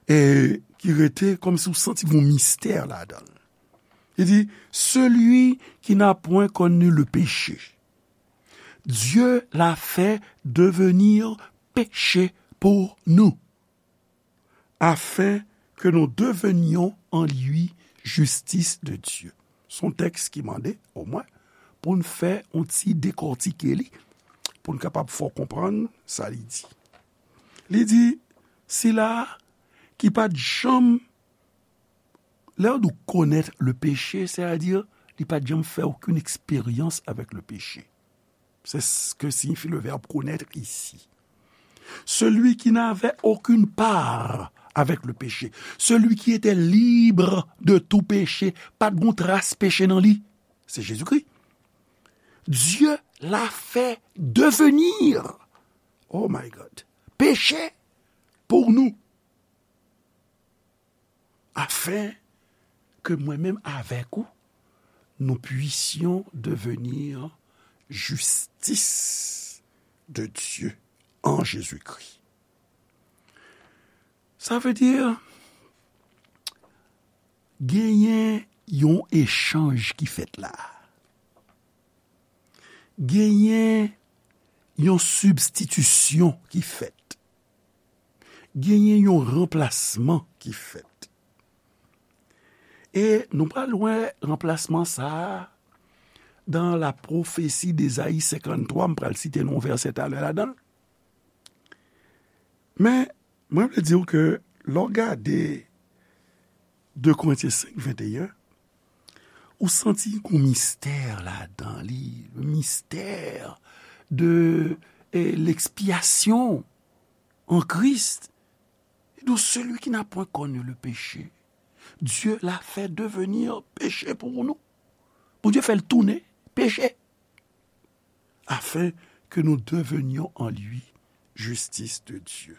e ki rete kòmsi w santi gon mistè ladan l. Li di, celui qui n'a point connu le péché, Dieu l'a fait devenir péché pour nous, afin que nous devenions en lui justice de Dieu. Se yon tèks ki mande, omwen, pou n fè yon ti dekòtike li, pou n kapab fè w konprann sa li di. Li di, sila ki pa t janm, lè w di w connaître le péché, c'est-à-dire, li pa t janm fè okenn eksperyans avèk le péché. C'est ce que signifie le verbe connaître ici. Celui qui n'avait aucune part avec le péché, celui qui était libre de tout péché, pa t gon tras peche nan li, se Jezikri. Dieu l'a fait devenir, oh my God, péché pour nous, afin que mwen menm avèk ou, nous puissions devenir justice de Dieu en Jésus-Christ. Sa vle di, genyen yon echanj ki fèt la. Genyen yon sibstitisyon ki fèt. Genyen yon ranplasman ki fèt. E nou pral wè ranplasman sa a dans la prophétie d'Ésaïe cinquante-trois, m pral site nou yon vèsè talè ladan l. Men, mwen vle di w ke lè w gade de Korentyen senk venteyen, ou santi gon mistè ladan li, le mystère de, eh, l'expiation en Christ. Et donc, celui qui n'a point connu le péché, Dieu l'a fait devenir péché pour nous. Bondye fè l tounen peche, afin que nous devenions en lui justice de Dieu.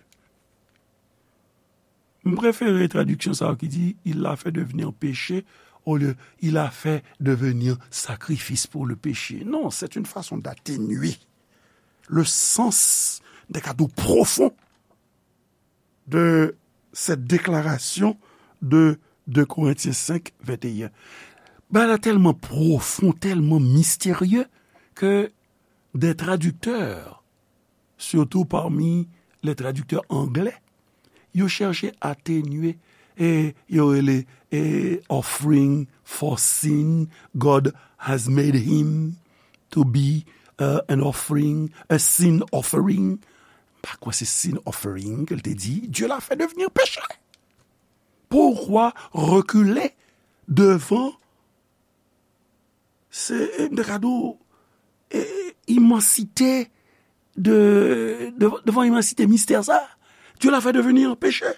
M prefere tradiksyon sa yo ki di, il l'a fait devenir péché, olye, il a fait devenir sacrifice pour le péché. Non, c'est une façon d'atténuer le sens, m te ka di w, profon de cette déclaration de de Korentyen senk venteyen. Bagay la tèlman pwofon, tèlman misterye ke des traducteurs, surtout parmi les traducteurs anglais, yo chèche atenye, e yo rele, e, offering for sin, God has made him to be, uh, an offering, a sin offering. M pa kwè se sin offering ke l te di. Dieu l'a fait devenir péché. Pourquoi reculer devant, se, e, m te ka di w, e, imansite de, de, devan imansite mistè sa? Dieu l'a fait devenir péché.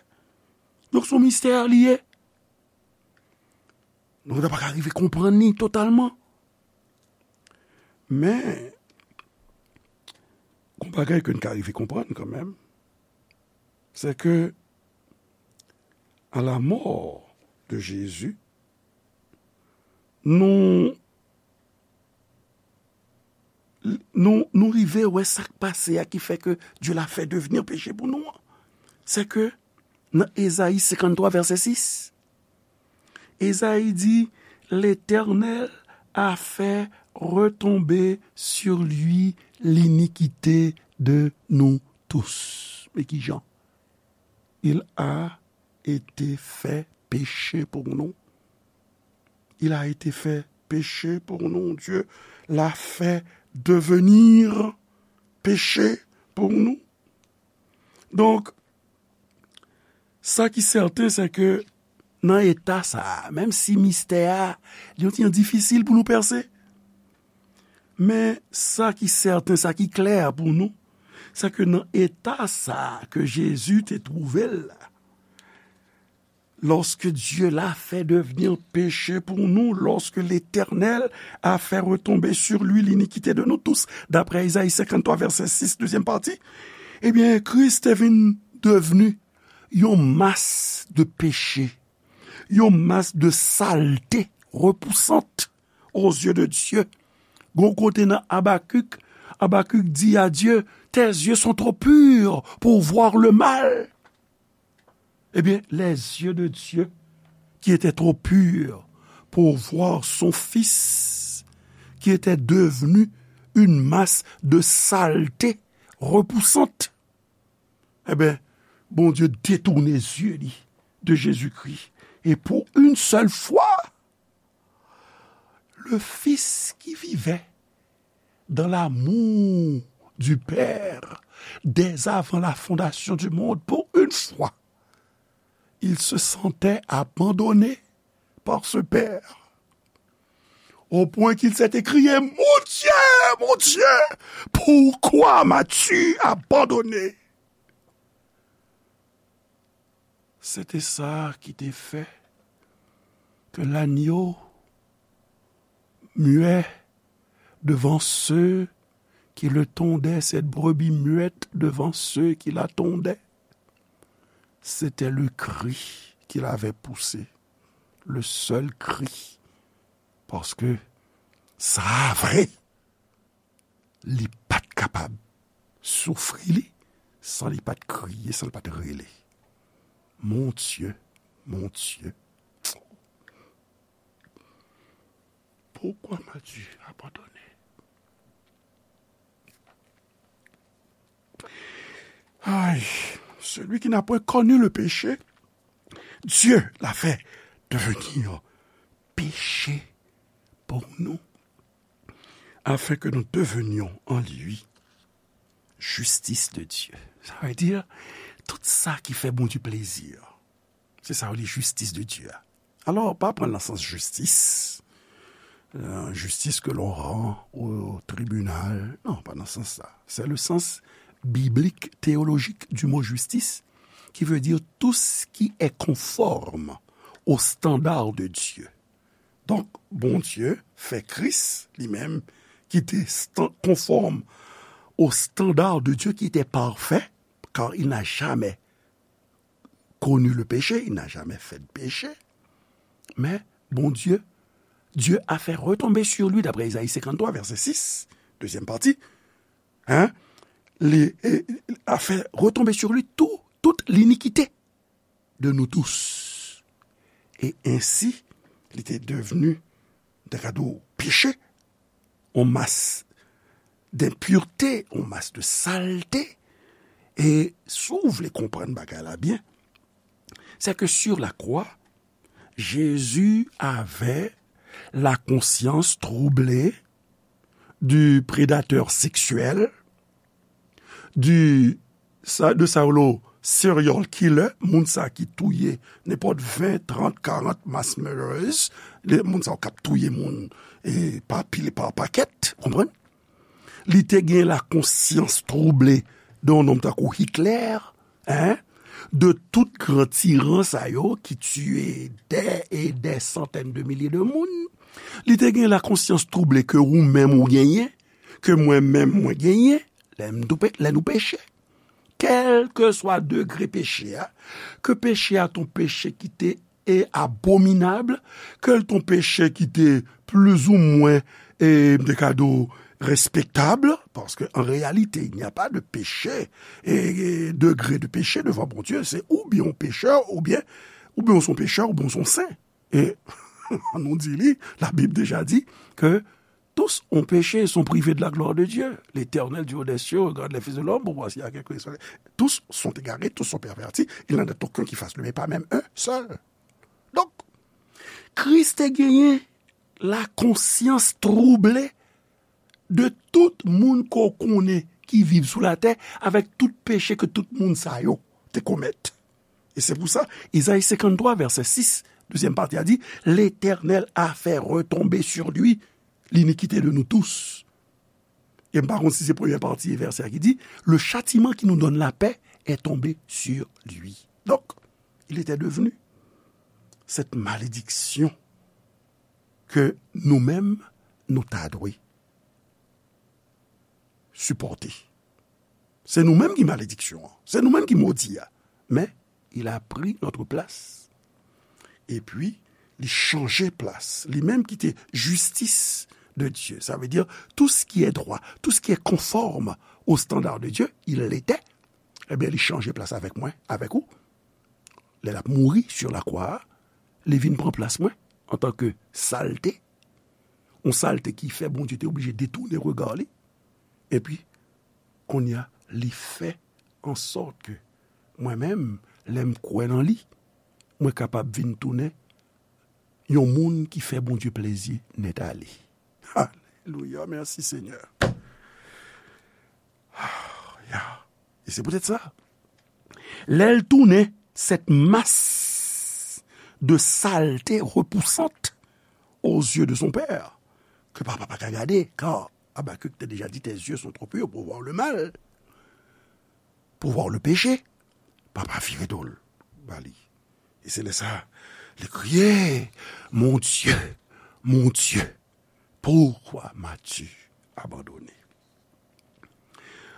Donk, se yon mistè li ye. Nou pa ka rive konprann li totalman. Men, gon bagay ke n ka rive konprann kanmenm. c'est que à la mort de Jésus, nou, nou, nou rive wè sa k pase a ki fè ke Dye la fè devni peche pou nou an. C'est que nan Ezayi senkanntwa vèsè sis, Ezayi di, L'Éternel a fait retomber sur lui l'iniquité de nous tous. Men ki jan? Il a été fait péché pour nous. Il a été fait péché pour nous. Dieu l'a fait devenir péché pour nous. Donk, sa ki sèten, se ke nan eta sa a, menm si mistè a, li yon ti jan difisil pou nou pèse, men sa ki sèten, sa ki klè pou nou, se ke nan eta sa a ke Jezi te twouve l la, lorsque Dieu l'a fait devenir péché pour nous, lorsque l'Éternel a fait retomber sur lui l'iniquité de nous tous, d'après Isaïe cinquante-trois, verset six, deuxième partie, ebyen, Kris te vin devni yon mas de peche, yon mas de salte repousant aux yeux de Dieu. Gon kote nan Abakik, Abakik di a Dye, Tes yeux sont trop purs pour voir le mal. Eh bien, les yeux de Dieu, qui étaient trop purs pour voir son Fils, qui était devenu une masse de saleté repoussante. Ebyen, Bondye detounen zye li de Jezikri. E pou yon sèl fwa, le Fils qui vivait dans l'amour du Père dès avant la fondation du monde, pour une fois, il se sentait abandonné par ce Père, au point qu'il s'est écrié, Mon Dieu, mon Dieu, pourquoi m'as-tu abandonné? Se te sa ki te fè ke lagno muet devant ceux qui le tondaient, cette brebis muette devant ceux qui la tondaient. C'était le cri qu'il avait poussé, le seul cri. Paske sa a vre, li pa t kapab soufri li san li pa t kriye, san li pa t rele. Mon Dieu, mon Dieu, pourquoi m'as-tu abandonné? Ay, celui qui n'a point connu le péché, Dieu l'a fait devenir péché pour nous, afin que nous devenions en lui justice de Dieu. Sa vle di, tout sa ki fè Bondye plezi, se sa yo rele jistis de Dye a. Alò, pa pran l nan sans jistis, euh, justice que l'on rend au tribunal. Non, pas dans ce sens-là. C'est le sens biblique, théologique du mot justice, qui veut dire tout ce qui est conforme au standard de Dieu. Donk, Bondye fè Kris, li menm, ki te stan-, konfòm au standard de Dieu, qui était parfait, car il n'a jamais connu le péché, il n'a jamais fait de péché. Mais Bondye, Dieu a fait retomber sur lui, d'après Isaïe cinquante-trois, verset six, deuxième partie, hein, li, e, a fait retomber sur lui tout, toute l'iniquité de nous tous. E ensi, li te devni, m ta ka di w, peche, yon mas d'impureté, yon mas de salte. E si w vle konprann bagay la byen, c'est que sur la croix, Jésus avait la conscience troublée du prédateur sexuel, du, sa, de sa yo rele serial killer, moun sa ki touye nenpòt ven, trant, karant mass murderers, le, moun sa yo k ap touye moun, e, pa pil, pa pakèt, konprann? Li te gen la konsyans twouble de yon nonm tankou Hitler, hein, de tout gran tiran sa yo ki tiye dè e dè santèn de milye de moun. Li te gen la konsyans twouble ke ou menm ou genyen, ke mwen menm mwen genyen, lè m tou pe-, lè nou peche. kèlkeswa degre peche a, ke peche a t on peche ki te e abominab, ke l t on peche ki te plizoumwen, e, m te ka di w, respektab, paske an reyalite, il n'y a pas de péché, e, e, degré de péché devant Bondye, se oubyen w pechè, oubyen, oubyen w se yon pechè, oubyen w se yon sen. E, nou di li, la Bible déjà dit que tous ont péché et sont privés de la gloire de Dieu. L'Éternel du haut des cieux regarde les fils de l'homme pour voir s'il y a quelqu'un qui soit. Tous sont égarés, tous sont pervertis, il n'en est aucun qui fasse le bien, pas même un seul. Donk, Kris te genyen la konsyans twouble de tout moun ke w konnen ki viv sou latè, avèk tout peche ke tout moun sa yo te komèt. E se pou sa, Izayi senkanntwa, vèsè sis, dezyèm pati a di, L'Éternel a fait retomber sur lui l'iniquité de nous tous. E m pa konn si se premyè pati vèsè a ki di, Le châtiment qui nous donne la paix est tombé sur lui. Donc, il était devenu cette malédiction que nous-mêmes, nou ta dwe sipòte. Se nou menm ki malediksyon an. Se nou menm ki modi a. Men, il a pris notre place. Epi, li chanje plas. Li menm ki te justice de Dieu. Ça veut dire, tout ce qui est droit, tout ce qui est conforme au standard de Dieu, il l'était. Ebyen, li chanje plas avèk mwen, avèk ou. Lè l ap mouri sur la croix, li vin pran plas mwen antanke salte. Yon salte ki fè Bondye te oblije detounen rega li. Epi, kounye a, li fè an sòt ke mwen menm, lè m kwè nan li, mwen kapab vin tounen yon moun ki fè Bondye plezi nèt ale. Alelouya, mèsi Senyè. Ah, ya. E se poutèt sa, lè l tounen cette masse de saleté repoussante aux yeux de son père, ke papa pa ka gade, car Habacuc te déjà dit, tes yeux sont trop purs pour voir le mal, pour voir le péché. Papa vire do l ba li. E se lè sa, li kriye, Mon Dieu, mon Dieu, pourquoi m'as-tu abandonné?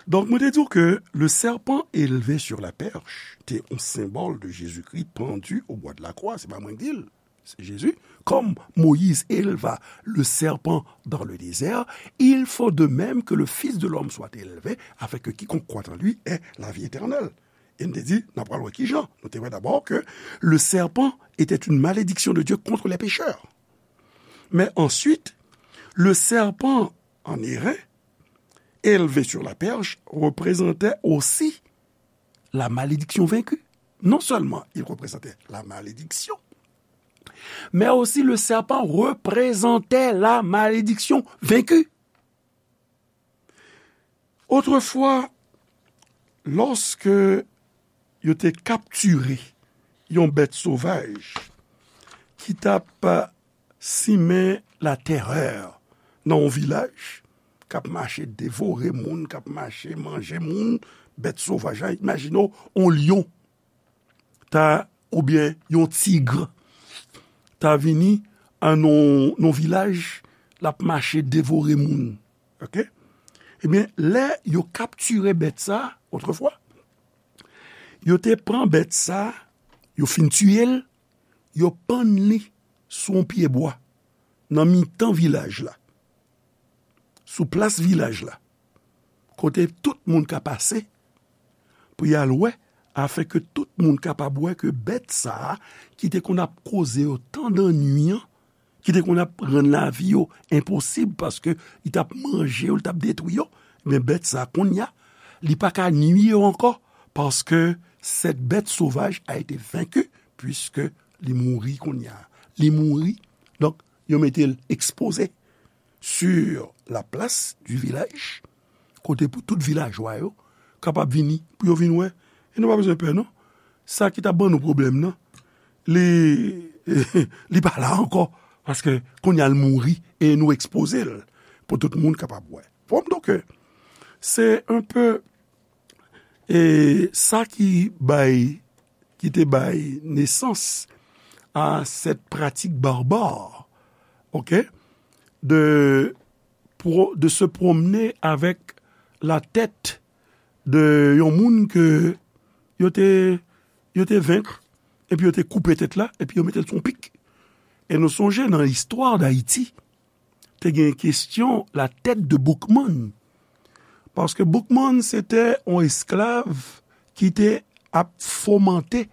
Donk, mwen te di w ke le serpent élevé sur la perche te yon senbòl de Jésus-Christ pendu au bois de la croix. Se pa mwen ki di l, se Jezi. Comme Moïse éleva le serpent dans le désert, il faut de même que le Fils de l'homme soit élevé, afin que quiconque croit en lui ait la vie éternelle. E n te di, n ap pral wè ki jan. Nou te wè dabò ke le serpent était une malédiction de Dieu contre les pécheurs. Mais ensuite, le serpent en airain, élevé sur la perche, représentait aussi la malédiction vaincue. Non seulement il représentait la malédiction, mais aussi le serpent représentait la malédiction vaincue. Otrefwa, lòske yo te kaptire yon bèt sovaj ki t ap simen latèrè nan yon vilaj, k ap mache devore moun, k ap mache manje moun, bèt sovaj la, imajine w, yon lyon ta, oubyen yon tig ta vini an nan, nan vilaj, l ap mache devore moun. Oke? Ebyen, lè yo kaptire bèt sa, otrefwa, yo te pran bèt sa, yo fin tiye l, yo pann li sou yon pye bwa, nan mitan vilaj la, sou plas vilaj la, kote tout moun ka pase pou y al wè, afin ke tout moun kapab wè ke bèt sa a, ki te konn ap koze yo tan dannwi an, ki te konn ap rann lavi yo enposib, paske li t ap manje yo, li t ap detwi yo, men bèt sa a, kounye a, li pa ka nwi yo ankò, paske cette bête sauvage a été vaincue, puisque li mouri kounye a. Li mouri, donk, yo mete l ekspoze sur la place du village, kote pou tout vilajwa yo kapab vini, pou yo vin wè. E nou pa bezwen pè, non. Sa ki t ap ban nou pwoblèm nan, li, li pa la ankò, paske kounye a l mouri e nou ekspoze l pou tout moun kapab wè. Bon, donk, se un peu, e sa ki bay, ki te bay nesans à cette pratique barbare, ok, de pro-, de se promener avec la tête de yon moun ke yo te, yo te venk, epi yo te koupe tèt la, epi yo mete l sou yon pik. E nou sonje nan istwa Dayiti, te gen kestyon la tête de Boukman. Paske Boukman se te yon esklav ki te ap fomante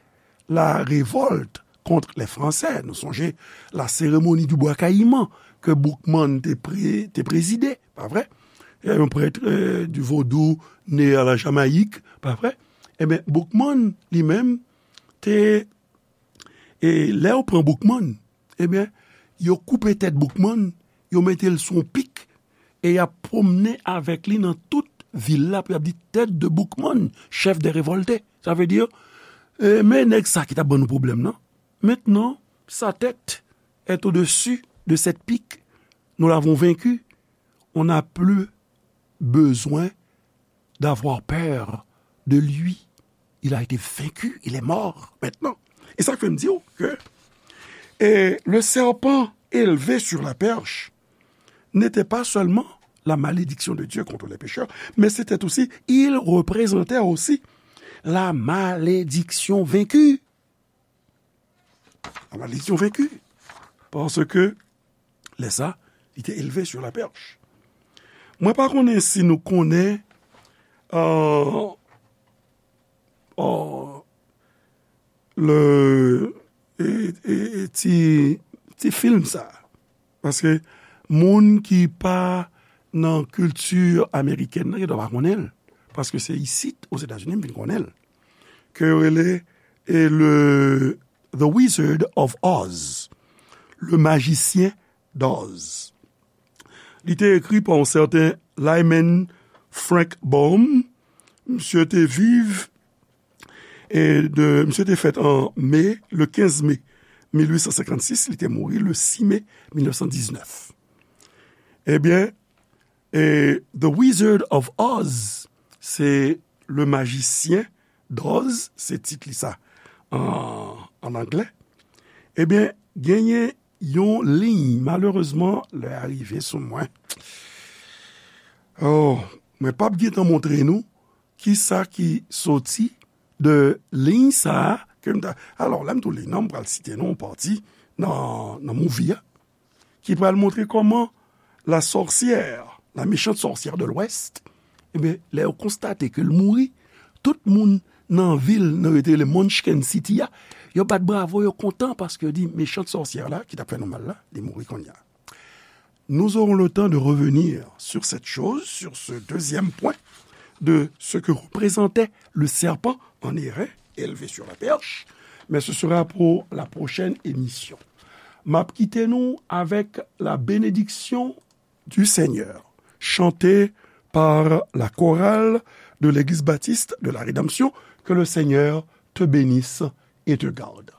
la révolte contre les Français. Nou sonje la cérémonie du Bois Caïman ke Boukman te, pre, te prezide, pa vre? Yon prèt, euh, du vodou né à la Jamaïque, pa vre? Ebyen, Boukman li menm te, e lè yo pran Boukman, ebyen, yo koupe tèt Boukman, yo mete l sou yon pik, e y ap pwomnen avèk li nan tout vil la pou y ap di tête de Boukman, chef des révoltés. Sa vle di, e, men nèg sa ki t ap ban nou pwoblèm nan. Maintenant, sa tête est au-dessus de cette pique. Nous l'avons vaincu. On n'a plus besoin d'avoir peur de lui. Il a été vaincu, il est mort maintenant. E sa k fè m di w ke, e, le serpent élevé sur la perche n'était pas seulement la malédiction de Dieu contre les pécheurs, mais c'était aussi, il représentait aussi la malédiction vaincue. La malédiction vaincue. Paske lè sa, li te élevé sur la perche. Mwen pa konnen si nou konnen, euh, euh, le, e, e, e ti, ti fim sa. Paske moun ki pa nan kilti amerikèn nan, yo dwe pa konnen l. Paske se isit, Ozetazini, m vin konnen l. Ke yo rele, e, le The Wizard of Oz, Le Magicien d'Oz. Li te ekri pa yon sèten Lyman Frank Baum. Misye te viv, e de, misye te fèt an me, le kenz me mil uit san senkannsis, li te mouri le sis me mil nèf san diznèf. Ebyen, e The Wizard of Oz, se Le Magicien d'Oz, se tit li sa an, an anglè. Ebyen, genyen yon liy, malerezman, lè a rive sou mwen. Oh, mwen p ap gentan montre nou kisa ki soti de liy sa a ke m ta, alò, lè m tou li non, m pral site non yon pati nan, nan movie a, ki pral montre kòman la sorcière, la méchante sorcière de l'Ouest, ebyen, lè yo konstate ke l mouri, tout moun nan vil nan yo te rele Munchkin City a, yo bat bravo, yo kontan paske yo di méchante sorcière la, ki t ap fè nou mal la, li mouri kounye a. Nous aurons le temps de revenir sur cette chose, sur ce deuxième point de ce que représentait le serpent en airain, élevé sur la perche, mais ce sera pour la prochaine émission. M ap kite nou avèk la bénédiction du Seigneur, chantée par la chorale de l'Église baptiste de la Rédemption. Que le Seigneur te bénisse et te garde.